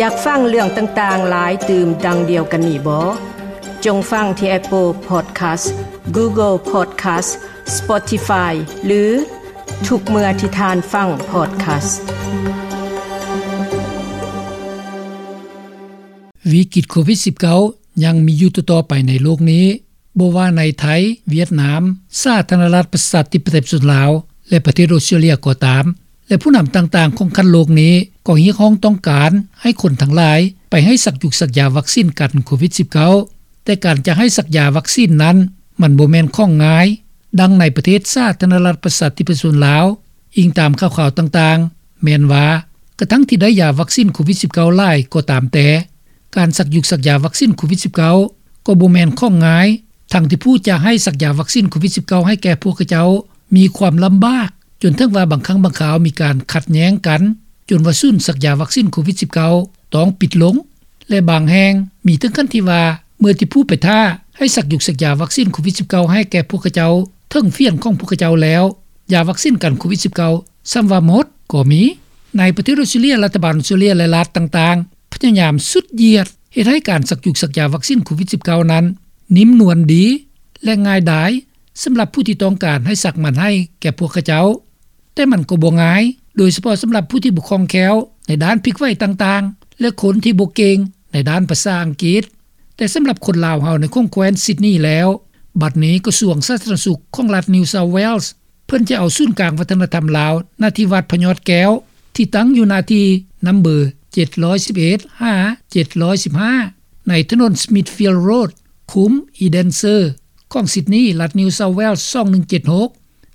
ຢາກຟັງເລື່ອງຕ່າງໆຫຼາຍຕື່ມດັ່ງດຽວກັນນີ້ບໍ? ຈົ່ງຟັງທີ່ Apple Podcast, Google Podcast, Spotify ຫຼື ທຸກເມື່ອທີ່ທ່ານຟັງ podcast. ວິກິດໂຄວິດ-19 ຍັງມີຢູ່ຕໍ່ໆໄປໃນໂລກນີ້, ບໍ່ວ່າໃນໄທ, ຫວຽດນາມ, ສາທາລະນະລັດປະຊາທິປະໄຕປະຊາຊົນລາວ ແລະ ປະເທດອົດສະຕຣາເລຍກໍຕາມ, ແລະ ຜູ້ນຳຕ່າງໆຂອງຂັ້ນໂລກນີ້ກໍຮຽກຮ້ອງຕ້ອງການໃຫ້ຄົນທັງຫຼາຍໄປໃຫ້ສັກຢູກສັກຢາວັກຊີນກັນໂຄວິດ-19. ແຕ່ການຈະໃຫ້ສັກຢາວັກຊີນນັ້ນ ມັນບໍ່ແມ່ນຂອງງ່າຍ. ດັ່ງໃນປະເທດສາທາລະນະລັດປະຊາທິປະຊາຊົນລາວ, ອີງຕາມຂ່າວໆຕ່າງໆ, ແມ່ນວ່າກະທັ່ງທີ່ໄດ້ຢາວັກຊີນໂຄວິດ-19 ຫຼາຍກໍຕາມແຕ່, ການສັກຢູກສັກຢາວັກຊີນໂຄວິດ-19 ກໍບໍ່ແມ່ນຂອງງ່າຍ, ທັງທີ່ຜູ້ຈະໃຫ້ສັກຢາວັກຊີນໂຄວິດ-19 ໃຫ້ແກ່ພວກເຂົາເຈົ້າມີຄວາມລຳບາກ, ຈົນເຖິງວ່າບາງຄັ້ງບາງຄາວມີການຂັດແຍ້ງກັນ, ຈົນວ່າສູນສັກຢາວັກຊີນໂຄວິດ-19 ຕ້ອງປິດລົງ. ແລະ ບາງແຫ່ງມີເຖິງຂັ້ນທີ່ວ່າ ເມື່ອທີ່ຜູ້ໄປຖ້າໃຫ້ສັກຢູກສັກຢາວັກຊີນໂຄວິດ-19 ໃຫ້ແກ່ພວກເຂົາເຈົ້າເຖິງເຟຍນຂອງພວກເຂົາເຈົ້າແລ້ວ, ຢາວັກຊີນກັນໂຄວິດ-19 ຊ້ຳວ່າໝົດກໍມີ. ໃນປະເທດອົດສະຕຣາເລຍ, ລັດຖະບານອົດສະຕຣາເລຍ ແລະ ລັດຕ່າງໆ ພະຍາຍາມສຸດຢຽດເຮັດໃຫ້ການສັກຢູກສັກຢາວັກຊີນໂຄວິດ-19 ນັ້ນ ນິ້ມນວນດີ ແລະ ງ່າຍດາຍ ສຳລັບຜູ້ທີ່ຕ້ອງການໃຫ້ສັກມັນໃຫ້ແກ່ພວກເຂົາເຈົ້າ. ແຕ່ມັນກໍບໍ່ງ່າຍ, ໂດຍສະເພາະສຳລັບຜູ້ທີ່ບໍ່ຄ່ອງແຄ້ວໃນດ້ານພິກໄຫວຕ່າງໆ ແລະ ຄົນທີ່ບໍ່ເກັ່ງໃນດ້ານພາສາອັງກິດ. ແຕ່ສຳລັບຄົນລາວເຮົາໃນຂົງແຄວ້ນຊິດນີແລ້ວ, ບັດນີ້ກະຊວງສາທາລະນະສຸກຂອງລັດ New South Wales ເພິ່ນຈະເອົາສູນກາງວັດທະນະທຳລາວ ນະທີ່ວັດພະຍອດແກ້ວ ທີ່ຕັ້ງຢູ່ໜ້າທີ່ນຳເບີ ເຈັດຮ້ອຍສິບເອັດ ຫາ ເຈັດຮ້ອຍສິບຫ້າ ໃນຖະໜົນ Smithfield Road ຄຸ້ມ Eden Sir ຂອງຊິດນີ, ລັດ New South Wales ສອງໜຶ່ງເຈັດຫົກ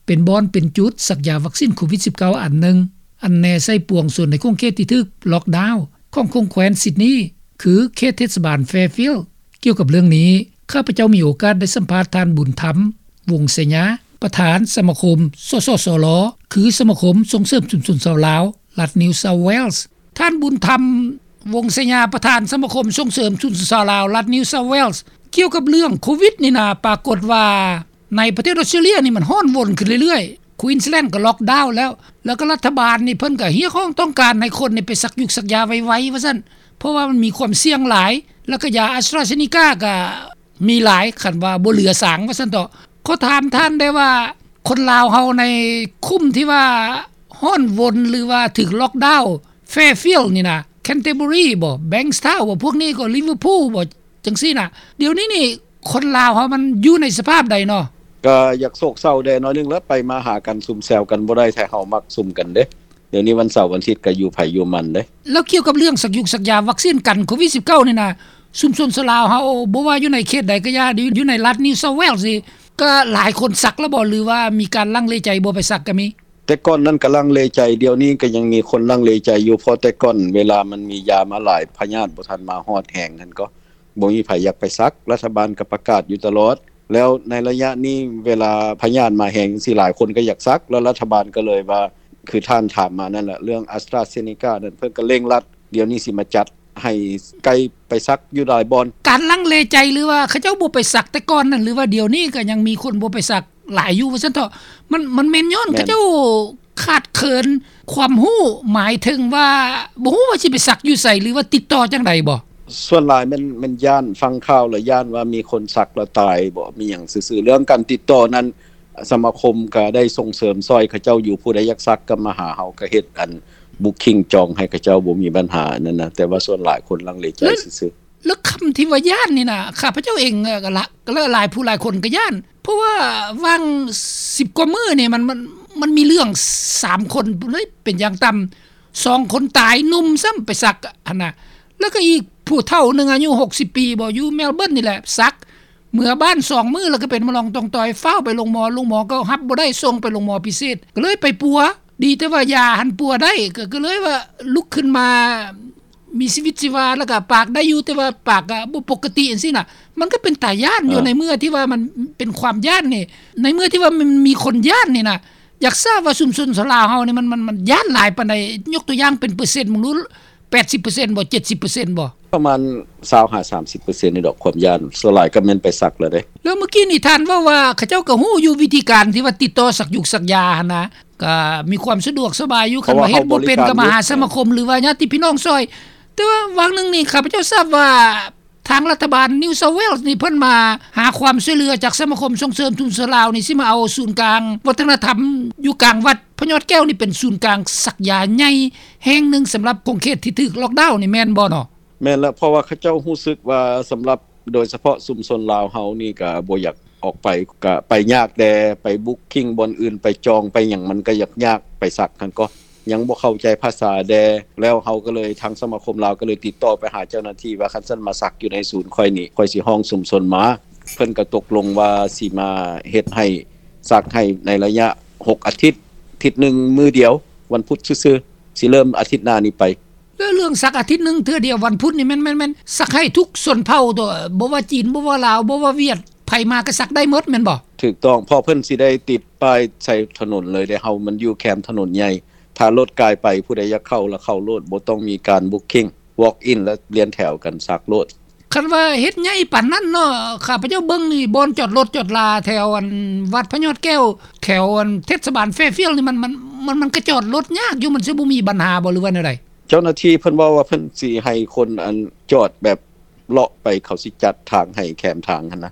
ເປັນບ່ອນເປັນຈຸດສັກຢາວັກຊີນໂຄວິດ-19 ອັນໜຶ່ງ ອັນແນໃສ່ປວງຊົນໃນຂົງເຂດທີ່ຖືກລັອກດາວຂອງຂົງແຄວ້ນຊິດນີ ຄືເຂດເທດສະບານ Fairfield. ກ່ຽວກັບເລື່ອງນີ້, ຂ້າພະເຈົ້າມີໂອກາດໄດ້ສຳພາດທ່ານ ບຸນທຳ ວົງໄຊຍາ, ປະທານສະມາຄົມ ສສສລ ຄືສະມາຄົມສົ່ງເສີມຊຸມຊົນຊາວລາວ ລັດ New South Wales. ທ່ານ ບຸນທຳ ວົງໄຊຍາ, ປະທານສະມາຄົມສົ່ງເສີມຊຸມຊົນຊາວລາວ ລັດ New South Wales, ກ່ຽວກັບເລື່ອງໂຄວິດນີ້ນະ, ປາກົດວ່າ ໃນປະເທດອົດສະຕຣາເລຍນີ້ມັນຮ້ອນວົນຂຶ້ນເລື້ອຍໆ, ຄວີນສ໌ແລນກໍລັອກດາວແລ້ວ, ແລ້ວກໍລັດຖະບານນີ້ເພິ່ນກໍຮຽກຮ້ອງຕ້ອງການໃຫ້ຄົນນີ້ໄປສັກຢູກສັກຢາໄວໆ ວ່າຊັ້ນ, ເພາະວ່າມັນມີຄວາມສ່ຽງຫຼາຍ, ແລ້ວກໍຢາອາສຕຣາເຊນີກາກໍມີຫຼາຍ, ຄັນວ່າບໍ່ເຫຼືອສາງ ວ່າຊັ້ນເຖາະ. ຂໍຖາມທ່ານໄດ້ວ່າ ຄົນລາວເຮົາໃນຄຸ້ມທີ່ວ່າຮ້ອນວົນ ຫຼືວ່າຖືກລັອກດາວ Fairfield ນີ້ນະ, Canterbury ບໍ, Bankstown ບໍ, ພວກນີ້ກໍ Liverpool ບໍ, ຈັ່ງຊີ້ນະ. ດຽວນີ້ນີ້ຄົນລາວເຮົາມັນຢູ່ໃນສະພາບໃດເນາະ? ກະຢາກໂສກເສົ້າແດ່ໜ້ອຍໜຶ່ງແຫຼະ, ໄປມາຫາກັນຊຸມແຊວກັນບໍ່ໄດ້ ແທ້ເຮົາມັກຊຸມກັນເດ້. ດຽວນີ້ວັນເສົາວັນອາທິດກະຢູ່ໃຜຢູ່ມັນເດ້. ແລ້ວກ່ຽວກັບເລື່ອງສັກຢູກສັກຢາວັກຊີນກັນໂຄວິດ-19 ນີ້ນະ, ຊຸມຊົນຊາວລາວເຮົາ ບໍ່ວ່າຢູ່ໃນເຂດໃດກະຢ່າ, ຢູ່ໃນລັດ New South Wales ນີ້ ກະຫຼາຍຄົນສັກແລ້ວບໍ ຫຼືວ່າມີການລັງເລໃຈບໍ່ໄປສັກກະມີ? ແຕ່ກ່ອນນັ້ນກະລັງເລໃຈ, ດຽວນີ້ກະຍັງມີຄົນລັງເລໃຈຢູ່, ເພາະແຕ່ກ່ອນເວລາມັນມີຢາມາຫຼາຍ, ພະຍາດບໍ່ທັນມາຮອດແຮງຫັ້ນກໍ ບໍ່ມີໃຜຢາກໄປສັກ, ລັດຖະບານກໍປະກາດຢູ່ຕະຫຼອດ. ແລ້ວໃນໄລຍະນີ້ເວລາພະຍາດມາແຮງຈັ່ງຊີ້ ຫຼາຍຄົນກໍຢາກສັກ, ແລ້ວລັດຖະບານກໍເລີຍວ່າ ຄືທ່ານຖາມມານັ້ນແຫຼະ, ເລື່ອງ AstraZeneca ນັ້ນ ເພິ່ນກໍເລັ່ງລັດ ດຽວນີ້ຊິມາຈັດໃຫ້ໄກໄປສັກຢູ່ຫຼາຍບ່ອນ. ການລັງເລໃຈ ຫຼືວ່າເຂົາເຈົ້າບໍ່ໄປສັກແຕ່ກ່ອນນັ້ນ ຫຼືວ່າດຽວນີ້ກໍຍັງມີຄົນບໍ່ໄປສັກຫຼາຍຢູ່ວ່າຊັ້ນເຖາະ? ມັນ ມັນແມ່ນຍ້ອນ ແມ່ນ ເຂົາເຈົ້າຂາດເຂີນຄວາມຮູ້, ໝາຍເຖິງວ່າບໍ່ຮູ້ວ່າຊິໄປສັກຢູ່ໃສ ຫຼືວ່າຕິດຕໍ່ຈັ່ງໃດບໍ? ສ່ວນຫຼາຍແມ່ນ ແມ່ນຢ້ານ, ຟັງຂ່າວແລ້ວຢ້ານວ່າມີຄົນສັກແລ້ວຕາຍບໍ ມີຫຍັງຊື່ໆ. ເລື່ອງການຕິດຕໍ່ນັ້ນ ສະມາຄົມກະໄດ້ສົ່ງເສີມຊ່ອຍເຂົາເຈົ້າຢູ່, ຜູ້ໃດຢາກສັກກໍມາຫາເຮົາ, ກໍເຮັດອັນ booking ຈອງໃຫ້ເຂົາເຈົ້າ, ບໍ່ມີບັນຫາອັນນັ້ນນະ, ແຕ່ວ່າສ່ວນຫຼາຍຄົນລັງເລໃຈຊື່ໆ. ແລ້ວ ແລ້ວຄຳທີ່ວ່າຢ້ານນີ້ນະ ຂ້າພະເຈົ້າເອງ ເອີ ກໍລະ ກໍຫຼາຍຜູ້ຫຼາຍຄົນກໍຢ້ານ, ເພາະວ່າຫວ່າງສິບກວ່າມື້ນີ້ ມັນ ມັນ ມັນມີເລື່ອງສາມຄົນເລີຍເປັນຢ່າງຕ່ຳ, ສອງຄົນຕາຍ, ໜຸ່ມຊ້ຳໄປສັກຫັ້ນນະ, ແລ້ວກໍອີກຜູ້ເຖົ້າໜຶ່ງອາຍຸຫົກສິບປີບໍ ຢູ່ Melbourne ນີ້ແຫຼະ ສັກ ເມືອບ້ານສອງມື້ແລ້ວກໍເປັນມະລອງຕ່ອງຕອຍ, ຟ້າວໄປໂຮງໝໍ, ໂຮງໝໍກໍຮັບບໍ່ໄດ້, ສົ່ງໄປໂຮງໝໍພິເສດ, ກໍເລີຍໄປປົວ. ດີແຕ່ວ່າຢາຫັ້ນປົວໄດ້, ກໍ ກໍເລີຍວ່າລຸກຂຶ້ນມາມີຊີວິດຊີວາ, ແລ້ວກໍປາກໄດ້ຢູ່, ແຕ່ວ່າປາກກໍບໍ່ປົກກະຕິຈັ່ງຊີ້ນະ. ມັນກໍເປັນຕາຢ້ານຢູ່ ເອີ ໃນເມື່ອທີ່ວ່າມັນເປັນຄວາມຢ້ານນີ້, ໃນເມື່ອທີ່ວ່າມັນມີຄົນຢ້ານນີ້ນະ, ຢາກຊາບວ່າຊຸມຊົນຊາວລາວເຮົານີ້ ມັນ ມັນ ມັນຢ້ານຫຼາຍປານໃດ? ຍົກຕົວຢ່າງເປັນເປີເຊັນເບິ່ງດູ. ແປດສິບເປີເຊັນບໍ? ເຈັດສິບເປີເຊັນບໍ? ປະມານຊາວຫາສາມສິບເປີເຊັນນີ້ດອກ ຄວາມຢ້ານ. ສ່ວນຫຼາຍກໍແມ່ນໄປສັກແລ້ວເດ້. ແລ້ວມື້ກີ້ນີ້ທ່ານເວົ້າວ່າ ເຂົາເຈົ້າກໍຮູ້ຢູ່ວິທີການທີ່ວ່າຕິດຕໍ່ສັກຢູກສັກຢາຫັ້ນນະ, ກໍມີຄວາມສະດວກສະບາຍຢູ່. ຄັນວ່າເຮັດບໍ່ເປັນ ກໍມາຫາສະມາຄົມ ຫຼືວ່າຍາດຕິພີ່ນ້ອງຊ່ອຍ. ແຕ່ວ່າຫວ່າງໜຶ່ງນີ້ ຂ້າພະເຈົ້າຊາບວ່າ ທາງລັດຖະບານ New South Wales ນີ້ ເພິ່ນມາຫາຄວາມຊ່ວຍເຫຼືອຈາກສະມາຄົມສົ່ງເສີມຊຸມຊົນລາວນີ້ ຊິມາເອົາສູນກາງວັດທະນະທຳຢູ່ກາງວັດພະຍອດແກ້ວນີ້ ເປັນສູນກາງສັກຢາໃຫຍ່ແຫ່ງໜຶ່ງ ສຳລັບຂົງເຂດທີ່ຖືກລ໊ອກດາວນີ້ ແມ່ນບໍ່ເນາະ? ແມ່ນແລ້ວ ເພາະວ່າເຂົາເຈົ້າຮູ້ສຶກວ່າ ສຳລັບໂດຍສະເພາະຊຸມຊົນລາວເຮົານີ້ ກະບໍ່ຢາກອອກໄປ ກະໄປຍາກແດ່ ໄປບຸກຄິງບ່ອນອື່ນ ໄປຈອງໄປຫຍັງ ມັນກະຍາກໆ ໄປສັກຫັ້ນກໍ ຍັງບໍ່ເຂົ້າໃຈພາສາແດ່ ແລ້ວເຮົາກໍເລີຍ ທາງສະມາຄົມລາວກໍເລີຍຕິດຕໍ່ໄປຫາເຈົ້າໜ້າທີ່ວ່າ ຄັນຊັ້ນມາສັກຢູ່ໃນສູນຂ້ອຍນີ້ ຂ້ອຍຊິຮ້ອງຊຸມຊົນມາ ເພິ່ນກໍຕົກລົງວ່າຊິມາເຮັດໃຫ້ ສັກໃຫ້ໃນໄລຍະຫົກອາທິດ ອາທິດໜຶ່ງມື້ດຽວ ວັນພຸດຊື່ໆ ຊິເລີ່ມອາທິດໜ້ານີ້ໄປ. ແລ້ວເລື່ອງສັກອາທິດໜຶ່ງເທື່ອດຽວວັນພຸດນີ້ ແມ່ນ ແມ່ນ ແມ່ນສັກໃຫ້ທຸກຊົນເຜົ່າຕົວະ ບໍ່ວ່າຈີນ ບໍ່ວ່າລາວ ບໍ່ວ່າຫວຽດ ໃຜມາກໍສັກໄດ້ໝົດແມ່ນບໍ່? ຖືກຕ້ອງ ເພາະເພິ່ນຊິໄດ້ຕິດປ້າຍໃສ່ຖະໜົນເລີຍເດ້ ເຮົາມັນຢູ່ແຄມຖະໜົນໃຫຍ່ ຖ້າລົດກາຍໄປ ຜູ້ໃດຢາກເຂົ້າລະເຂົ້າໂລດ ບໍ່ຕ້ອງມີການບຸກຄິງ ວອກອິນ ລະລຽນແຖວກັນສັກໂລດ. ຄັນວ່າເຮັດໃຫຍ່ປານນັ້ນເນາະ ຂ້າພະເຈົ້າເບິ່ງນີ້ ບ່ອນຈອດລົດຈອດລາແຖວອັນວັດພະຍອດແກ້ວ ແຖວອັນເທດສະບານ Fairfield ນີ້ ມັນ ມັນ ມັນ ມັນກະຈອດລົດຍາກຢູ່ ມັນຊິບໍ່ມີບັນຫາບໍ່ ຫຼືວ່າແນວໃດ? ເຈົ້າໜ້າທີ່ເພິ່ນເວົ້າວ່າ ເພິ່ນຊິໃຫ້ຄົນອັນຈອດແບບ ເລາະໄປ ເຂົາຊິຈັດທາງໃຫ້ແຄມທາງຫັ້ນນະ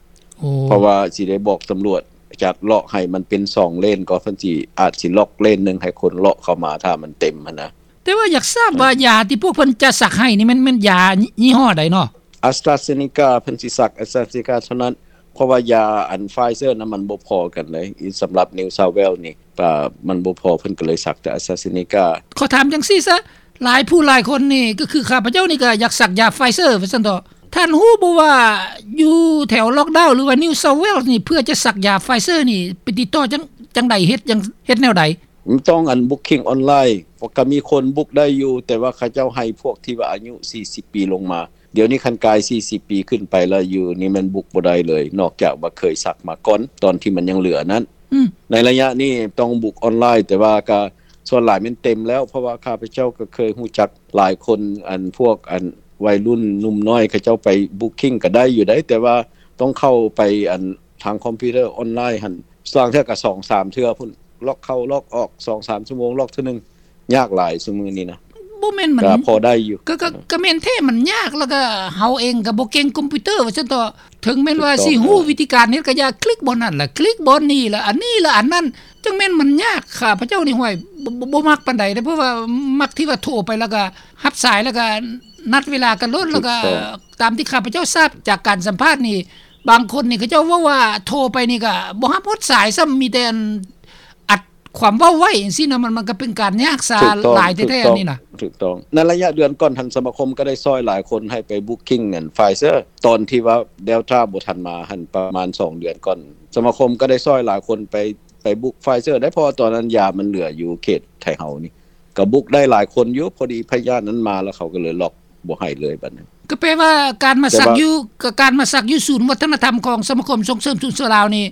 ເພາະວ່າຊິໄດ້ບອກຕຳຫຼວດຈັດເລາະໃຫ້ມັນເປັນສອງເລນ ກໍເພິ່ນຊິ ອາດຊິລັອກເລນໜຶ່ງໃຫ້ຄົນເລາະເຂົ້າມາ ຖ້າມັນເຕັມຫັ້ນນະ. ແຕ່ວ່າຢາກຊາບວ່າ ເອີ ຢາທີ່ພວກເພິ່ນຈະສັກໃຫ້ນີ້ ແມ່ນ ແມ່ນຢາຍີ່ຫໍ້ໃດເນາະ? AstraZeneca ເພິ່ນຊິສັກ AstraZeneca ເທົ່ານັ້ນ ເພາະວ່າຢາອັນ Pfizer ນະ ມັນບໍ່ພໍກັນເລີຍ ສຳລັບ New South Wales ນີ້ ກະມັນບໍ່ພໍ ເພິ່ນກໍເລີຍສັກແຕ່ AstraZeneca. ຂໍຖາມຈັ່ງຊີ້ຊະ ຫຼາຍຜູ້ຫຼາຍຄົນນີ້ ກໍຄືຂ້າພະເຈົ້ານີ້ກໍຢາກສັກຢາ Pfizer ວ່າຊັ້ນເຖາະ ທ່ານຮູ້ບໍ່ວ່າຢູ່ແຖວລ໊ອກດາວ ຫຼືວ່າ New South Wales ນີ້ ເພື່ອຈະສັກຢາ Pfizer ນີ້ ໄປຕິດຕໍ່ຈັ່ງ ຈັ່ງໃດ ເຮັດຈັ່ງ ເຮັດແນວໃດ? ມັນຕ້ອງອັນບຸກຄິງອອນລາຍ ກໍມີຄົນບຸກໄດ້ຢູ່ ແຕ່ວ່າເຂົາເຈົ້າໃຫ້ພວກທີ່ວ່າອາຍຸສີ່ສິບປີລົງມາ ດຽວນີ້ຄັນກາຍສີ່ສິບປີຂຶ້ນໄປແລ້ວ ຢູ່ນີ້ແມ່ນບຸກບໍ່ໄດ້ເລີຍ ນອກຈາກວ່າເຄີຍສັກມາກ່ອນ ຕອນທີ່ມັນຍັງເຫຼືອນັ້ນ. ໃນໄລຍະນີ້ຕ້ອງບຸກອອນລາຍ ແຕ່ວ່າກະສ່ວນຫຼາຍແມ່ນເຕັມແລ້ວ ເພາະວ່າຂ້າພະເຈົ້າກໍເຄີຍຮູ້ຈັກຫຼາຍຄົນ ອັນພວກອັນໄວລຸ້ນໜຸ່ມນ້ອຍ ເຂົາເຈົ້າໄປບຸກຄິງກໍໄດ້ຢູ່ໃດ ແຕ່ວ່າຕ້ອງເຂົ້າໄປອັນທາງຄອມພິວເຕີອອນລາຍຫັ້ນ ບາງເທື່ອກໍສອງສາມເທື່ອພຸ້ນ ລັອກເຂົ້າລັອກອອກ ສອງສາມຊົ່ວໂມງລັອກເທື່ອໜຶ່ງ ຍາກຫຼາຍຊຸມື້ນີ້ນະ. ບໍ່ແມ່ນມັນ ກໍພໍໄດ້ຢູ່ ກໍ ກໍ ກໍແມ່ນແທ້ ມັນຍາກ ແລ້ວກໍເຮົາເອງກໍບໍ່ເກັ່ງຄອມພິວເຕີວ່າຊັ້ນເຖາະ ເຖິງແມ່ນວ່າຊິຮູ້ວິທີການເຮັດກໍຢ່າ ຄລິກບ່ອນນັ້ນລະ ຄລິກບ່ອນນີ້ລະ ອັນນີ້ລະ ອັນນັ້ນ ຈັ່ງແມ່ນມັນຍາກ. ຂ້າພະເຈົ້ານີ້ ຫ້ວຍ ບໍ່ ບໍ່ ບໍ່ມັກປານໃດເດ້ ເພາະວ່າມັກທີ່ວ່າໂທໄປ ແລ້ວກໍຮັບສາຍ ແລ້ວກໍນັດເວລາກັນໂລດ ແລ້ວກໍຕາມທີ່ຂ້າພະເຈົ້າຊາບຈາກການສຳພາດນີ້ ບາງຄົນນີ້ເຂົາເຈົ້າເວົ້າວ່າໂທໄປນີ້ກໍບໍ່ຮັບຮອດສາຍຊ້ຳ ມີແຕ່ອັນ ອັດຄວາມເວົ້າໄວ້ຈັ່ງຊີ້ນະ ມັນ ມັນກໍເປັນການຍາກສາຫຼາຍແທ້ໆ ອັນນີ້ນະ. ຖືກຕ້ອງ ໃນໄລຍະເດືອນກ່ອນຫັ້ນ ສະມາຄົມກໍໄດ້ຊ່ອຍຫຼາຍຄົນໃຫ້ໄປບຸກຄິງອັນ Pfizer ຕອນທີ່ວ່າ Delta ບໍ່ທັນມາຫັ້ນ ປະມານສອງເດືອນກ່ອນ ສະມາຄົມກໍໄດ້ຊ່ອຍຫຼາຍຄົນໄປ ໄປບຸກ Pfizer ໄດ້ ເພາະວ່າຕອນນັ້ນຢາມັນເຫຼືອຢູ່ເຂດໄທເຮົານີ້ ກໍບຸກໄດ້ຫຼາຍຄົນຢູ່ ພໍດີພະຍາດນັ້ນມາ ແລ້ວເຂົາກໍເລີຍລັອກ ບໍ່ໃຫ້ເລີຍບັດນີ້. ກໍແປວ່າການມາສັກຢູ່ ກໍການມາສັກຢູ່ສູນວັດທະນະທຳຂອງສະມາຄົມສົ່ງເສີມຊຸມຊົນລາວນີ້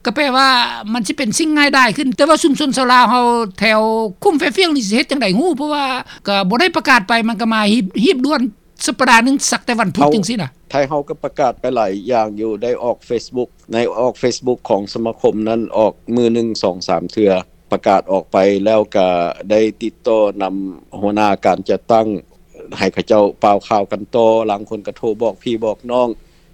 ກໍແປວ່າມັນຊິເປັນສິ່ງງ່າຍດາຍຂຶ້ນ ແຕ່ວ່າຊຸມຊົນຊາວລາວເຮົາແຖວຄຸ້ມ Fairfield ນີ້ຊິເຮັດຈັ່ງໃດຮູ້ ເພາະວ່າກໍບໍ່ໄດ້ປະກາດໄປ ມັນກໍມາຮີບ ຮີບດ່ວນ ສັບປະດາໜຶ່ງສັກແຕ່ວັນພຸດຈັ່ງຊີ້ນະ. ໄທເຮົາກໍປະກາດໄປຫຼາຍຢ່າງຢູ່ ໄດ້ອອກ Facebook ໃນອອກ Facebook ຂອງສະມາຄົມນັ້ນ ອອກມື້ໜຶ່ງສອງສາມເທື່ອ ປະກາດອອກໄປ ແລ້ວກະໄດ້ຕິດຕໍ່ນຳຫົວໜ້າການຈັດຕັ້ງ ໃຫ້ເຂົາເຈົ້າປ່າວຂ່າວກັນຕໍ່ ລາງຄົນກໍໂທບອກພີ່ບອກນ້ອງ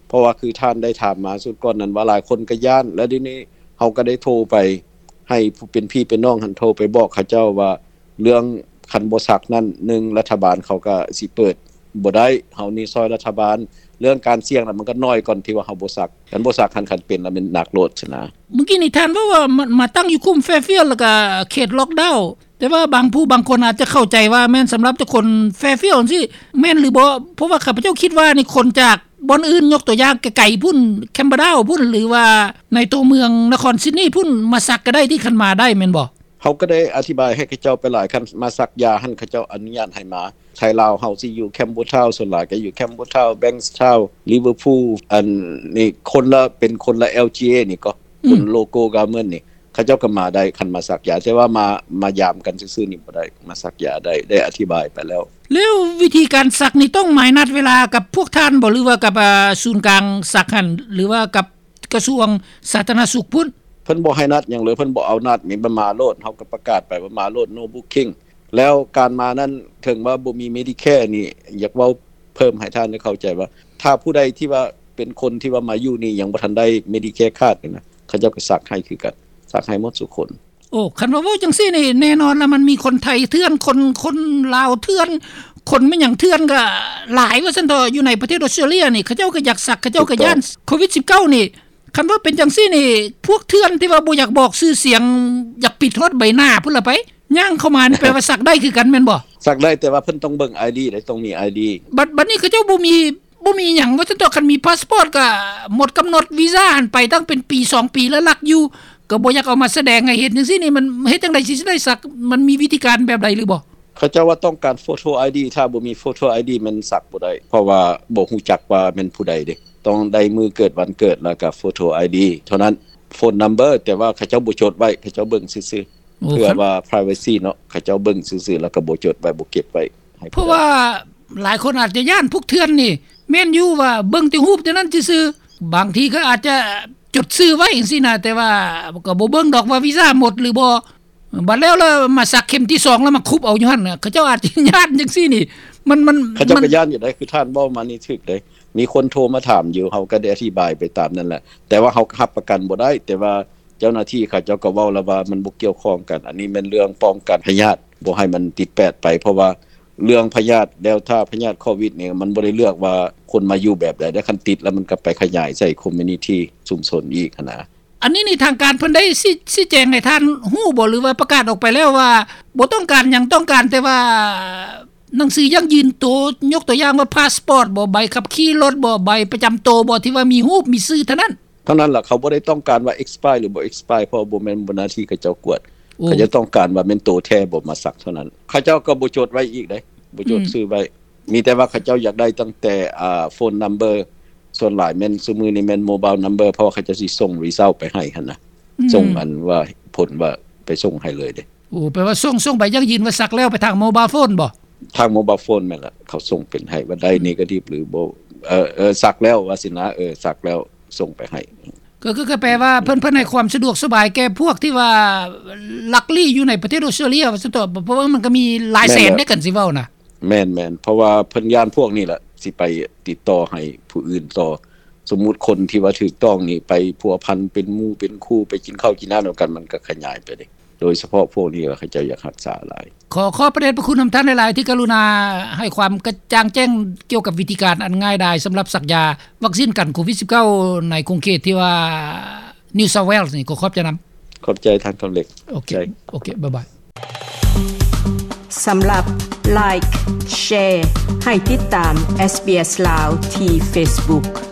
ເພາະວ່າຄືທ່ານໄດ້ຖາມມາຊຸດກ່ອນນັ້ນວ່າ ຫຼາຍຄົນກໍຢ້ານ ແລ້ວດຽວນີ້ເຮົາກໍໄດ້ໂທໄປໃຫ້ຜູ້ເປັນພີ່ເປັນນ້ອງຫັ້ນ ໂທໄປບອກເຂົາເຈົ້າວ່າ ເລື່ອງຄັນບໍ່ສັກນັ້ນ ໜຶ່ງ ລັດຖະບານເຂົາກໍຊິເປີດບໍ່ໄດ້ ເຮົານີ້ຊ່ອຍລັດຖະບານ ເລື່ອງການສ່ຽງນະ ມັນກໍໜ້ອຍກ່ອນທີ່ວ່າເຮົາບໍ່ສັກ ຄັນບໍ່ສັກຫັ້ນ ຄັນເປັນລະແມ່ນໜັກໂລດຊັ້ນນະ. ມື້ກີ້ນີ້ທ່ານເວົ້າວ່າ ມາ ມາຕັ້ງຢູ່ຄຸ້ມ Fairfield ແລ້ວກໍເຂດລ໊ອກດາວ ແຕ່ວ່າບາງຜູ້ບາງຄົນອາດຈະເຂົ້າໃຈວ່າແມ່ນສຳລັບແຕ່ຄົນ Fairfield ຈັ່ງຊີ້ ແມ່ນຫຼືບໍ່? ເພາະວ່າຂ້າພະເຈົ້າຄິດວ່ານີ້ ຄົນຈາກບ່ອນອື່ນ ຍົກຕົວຢ່າງໄກໆພຸ້ນ Camperdown ພຸ້ນ ຫຼືວ່າໃນຕົວເມືອງນະຄອນ Sydney ພຸ້ນ ມາສັກກໍໄດ້ ທີ່ຄັນມາໄດ້ແມ່ນບໍ່? ເຮົາກໍໄດ້ອະທິບາຍໃຫ້ເຂົາເຈົ້າໄປຫຼາຍ ຄັນມາສັກຢາຫັ້ນ ເຂົາເຈົ້າອະນຸຍາດໃຫ້ມາ. ໄທລາວເຮົາຊິຢູ່ Campbelltown ສ່ວນຫຼາຍກໍຢູ່ Campbelltown Bankstown Liverpool ອັນນີ້ຄົນລະ ເປັນຄົນລະ LGA ນີ້ກໍ ຄົນ Local Government ນີ້ ເຂົາເຈົ້າກໍມາໄດ້ ຄັນມາສັກຢາ ແຕ່ວ່າມາ ມາຢາມກັນຊື່ໆນີ້ບໍ່ໄດ້ ມາສັກຢາໄດ້ ໄດ້ອະທິບາຍໄປແລ້ວ. ແລ້ວວິທີການສັກນີ້ຕ້ອງໝາຍນັດເວລາກັບພວກທ່ານບໍ່ ຫຼືວ່າກັບ ອາ ສູນກາງສັກຫັ້ນ ຫຼືວ່າກັບ ກະຊວງສາທາລະນະສຸກພຸ້ນ? ເພິ່ນບໍ່ໃຫ້ນັດຫຍັງເລີຍ ເພິ່ນບໍ່ເອົານັດນີ້ ມາໂລດ ເຮົາກໍປະກາດໄປວ່າມາໂລດ no booking ແລ້ວການມານັ້ນ ເຖິງວ່າບໍ່ມີ Medicare ນີ້ ຢາກເວົ້າເພີ່ມໃຫ້ທ່ານໄດ້ເຂົ້າໃຈວ່າ ຖ້າຜູ້ໃດທີ່ວ່າເປັນຄົນທີ່ວ່າມາຢູ່ນີ້ ຍັງບໍ່ທັນໄດ້ Medicare card ນີ້ນະ ເຂົາເຈົ້າກໍສັກໃຫ້ຄືກັນ, ສັກໃຫ້ໝົດສູ່ຄົນ. ໂອ້ ຄັນວ່າເວົ້າຈັ່ງຊີ້ນີ້ ແນ່ນອນລະ ມັນມີຄົນໄທເຖື່ອນ, ຄົນ ຄົນລາວເຖື່ອນ, ຄົນແມ່ນຫຍັງເຖື່ອນກໍຫຼາຍວ່າຊັ້ນເຖາະ ຢູ່ໃນປະເທດອອສເຕຣເລຍນີ້. ເຂົາເຈົ້າກໍຢາກສັກ, ເຂົາເຈົ້າກໍຢ້ານໂຄວິດສິບເກົ້ານີ້. ຄັນວ່າເປັນຈັ່ງຊີ້ນີ້ ພວກເຖື່ອນທີ່ວ່າບໍ່ຢາກບອກຊື່ສຽງ ຢາກປິດຮອດໃບໜ້າພຸ້ນລະໄປ ຍ່າງເຂົ້າມານີ້ ແປວ່າສັກໄດ້ຄືກັນແມ່ນບໍ່? ສັກໄດ້ ແຕ່ວ່າເພິ່ນຕ້ອງເບິ່ງ ID ເດ້, ຕ້ອງມີ ID. ບັດ ບັດນີ້ເຂົາເຈົ້າບໍ່ມີ ບໍ່ມີຫຍັງວ່າຊັ້ນເຖາະ, ຄັນມີພາສປອດກໍໝົດກຳນົດວີຊາຫັ້ນໄປຕັ້ງເປັນປີສອງປີແລ້ວ ລັກຢູ່ ກໍບໍ່ຢາກເອົາມາສະແດງໃຫ້ເຫັນຈັ່ງຊີ້ນີ້ ມັນເຮັດຈັ່ງໃດຊິໄດ້ສັກ? ມັນມີວິທີການແບບໃດຫຼືບໍ່? ເຂົາເຈົ້າວ່າຕ້ອງການໂຟໂຕ ID, ຖ້າບໍ່ມີໂຟໂຕ ID ແມ່ນສັກບໍ່ໄດ້ ເພາະວ່າບໍ່ຮູ້ຈັກວ່າແມ່ນຜູ້ໃດເດ້, ຕ້ອງໄດ້ມື້ເກີດວັນເກີດ ແລ້ວກໍໂຟໂຕ ID ເທົ່ານັ້ນ. ໂຟນນຳເບີ ແຕ່ວ່າເຂົາເຈົ້າບໍ່ຈົດໄວ້, ເຂົາເຈົ້າເບິ່ງຊື່ໆ ໂອ້ ເພື່ອວ່າ privacy ເນາະ, ເຂົາເຈົ້າເບິ່ງຊື່ໆ ແລ້ວກໍບໍ່ຈົດໄວ້ ບໍ່ເກັບໄວ້ໃຫ້ຜູ້ໃດ. ເພາະວ່າຫຼາຍຄົນອາດຈະຢ້ານພວກເຖື່ອນນີ້. ແມ່ນຢູ່ວ່າເບິ່ງແຕ່ຮູບແຕ່ນັ້ນຊື່ໆ, ບາງທີກໍອາດຈະຈົດຊື່ໄວ້ຈັ່ງຊີ້ນະ ແຕ່ວ່າກໍບໍ່ເບິ່ງດອກວ່າວີຊາໝົດຫຼືບໍ່. ບັດແລ້ວລະມາສັກເຂັມທີສອງ ລະມາຄຸບເອົາຢູ່ຫັ້ນນະ, ເຂົາເຈົ້າອາດຈະຢ້ານຈັ່ງຊີ້ນີ້. ມັນ ມັນ ເຂົາເຈົ້າກໍຢ້ານຢູ່ໃດ໋, ຄືທ່ານເວົ້າມານີ້ຖືກເດ້. ມີຄົນໂທມາຖາມຢູ່, ເຮົາກໍໄດ້ອະທິບາຍໄປຕາມນັ້ນແຫຼະ, ແຕ່ວ່າເຮົາກໍຮັບປະກັນບໍ່ໄດ້. ແຕ່ວ່າເຈົ້າໜ້າທີ່ເຂົາເຈົ້າກໍເວົ້າແລ້ວວ່າມັນບໍ່ກ່ຽວຂ້ອງກັນ, ອັນນີ້ແມ່ນເລື່ອງປ້ອງກັນພະຍາດ, ບໍ່ໃຫ້ມັນຕິດແປດໄປ, ເພາະວ່າເລື່ອງພະຍາດ Delta ພະຍາດໂຄວິດນີ້ ມັນບໍ່ໄດ້ເລືອກວ່າຄົນມາຢູ່ແບບໃດເດ້, ຄັນຕິດແລ້ວມັນກໍໄປຂະຫຍາຍໃສ່ community ຊຸມຊົນອີກຫັ້ນນະ. ອັນນີ້ນີ້ທາງການເພິ່ນໄດ້ຊີ້ ຊີ້ແຈງໃຫ້ທ່ານຮູ້ບໍ່ ຫຼືວ່າປະກາດອອກໄປແລ້ວວ່າບໍ່ຕ້ອງການຫຍັງ, ຕ້ອງການແຕ່ວ່າໜັງສືຢັ້ງຢືນໂຕ, ຍົກຕົວຢ່າງວ່າພາສປອດບໍ, ໃບຂັບຂີ່ລົດບໍ, ໃບປະຈຳໂຕບໍ ທີ່ວ່າມີຮູບມີຊື່ເທົ່ານັ້ນ? ເທົ່ານັ້ນລະ, ເຂົາບໍ່ໄດ້ຕ້ອງການວ່າ expire ຫຼືບໍ່ expire ເພາະບໍ່ແມ່ນ ບໍ່ໜ້າທີ່ເຂົາເຈົ້າກວດ. ໂອ້ ເຂົາເຈົ້າຕ້ອງການວ່າແມ່ນໂຕແທ້ບໍ່ມາສັກເທົ່ານັ້ນ. ເຂົາເຈົ້າກໍບໍ່ຈົດໄວ້ອີກເດ້, ບໍ່ຈົດ ອືມ ຊື່ໄວ້. ມີແຕ່ວ່າເຂົາເຈົ້າຢາກໄດ້ຕັ້ງແຕ່ ອ່າ phone number, ສ່ວນຫຼາຍແມ່ນ ຊຸມື້ນີ້ແມ່ນ mobile number ເພາະວ່າເຂົາເຈົ້າຊິສົ່ງ result ໄປໃຫ້ຫັ້ນນະ, ອືມ ສົ່ງອັນວ່າຜົນວ່າໄປສົ່ງໃຫ້ເລີຍເດ້. ໂອ້ ແປວ່າສົ່ງ ສົ່ງໃບຢັ້ງຢືນວ່າສັກແລ້ວໄປທາງ mobile phone ບໍ? ທາງ mobile phone ແມ່ນລະ, ເຂົາສົ່ງເປັນໃຫ້ວ່າໄດ້ ອືມ negative ຫຼືບໍ່, ເອີ ເອີ ສັກແລ້ວວ່າຊີ້ນະ, ເອີ ສັກແລ້ວ ສົ່ງໄປໃຫ້. ກໍ ກໍ ກໍແປວ່າເພິ່ນ ເພິ່ນໃຫ້ຄວາມສະດວກສະບາຍແກ່ພວກທີ່ວ່າລັກລີ້ຢູ່ໃນປະເທດອອສເຕຣເລຍວ່າຊັ້ນເຖາະ, ເພາະວ່າມັນກໍມີຫຼາຍແສນເດ້ ຄັນຊິເວົ້ານະ. ແມ່ນໆ ເພາະວ່າເພິ່ນຢ້ານພວກນີ້ແຫຼະ ຊິໄປຕິດຕໍ່ໃຫ້ຜູ້ອື່ນຕໍ່. ສົມມຸດຄົນທີ່ວ່າຖືກຕ້ອງນີ້ໄປພົວພັນເປັນໝູ່ເປັນຄູ່ ໄປກິນເຂົ້າກິນນ້ຳນຳກັນ, ມັນກໍຂະຫຍາຍໄປເດ້. ໂດຍສະເພາະພວກນີ້ລະ ເຂົາເຈົ້າຢາກຮັກສາຫຼາຍ. ຂໍຂອບພະເດດພະຄຸນນຳທ່ານຫຼາຍໆ ທີ່ກະລຸນາໃຫ້ຄວາມກະຈ່າງແຈ້ງກ່ຽວກັບວິທີການອັນງ່າຍດາຍສຳລັບສັກຢາວັກຊີນກັນໂຄວິດສິບເກົ້າ ໃນຂົງເຂດທີ່ວ່າ New South Wales ນີ້. ຂໍຂອບໃຈນຳ. ຂອບໃຈທ່ານຄຳເລັກ. ໂອເຄ ໂອເຄ ບາຍບາຍ. ສຳລັບ Like Share ໃຫ້ຕິດຕາມ SBS ລາວ ທີ່ Facebook.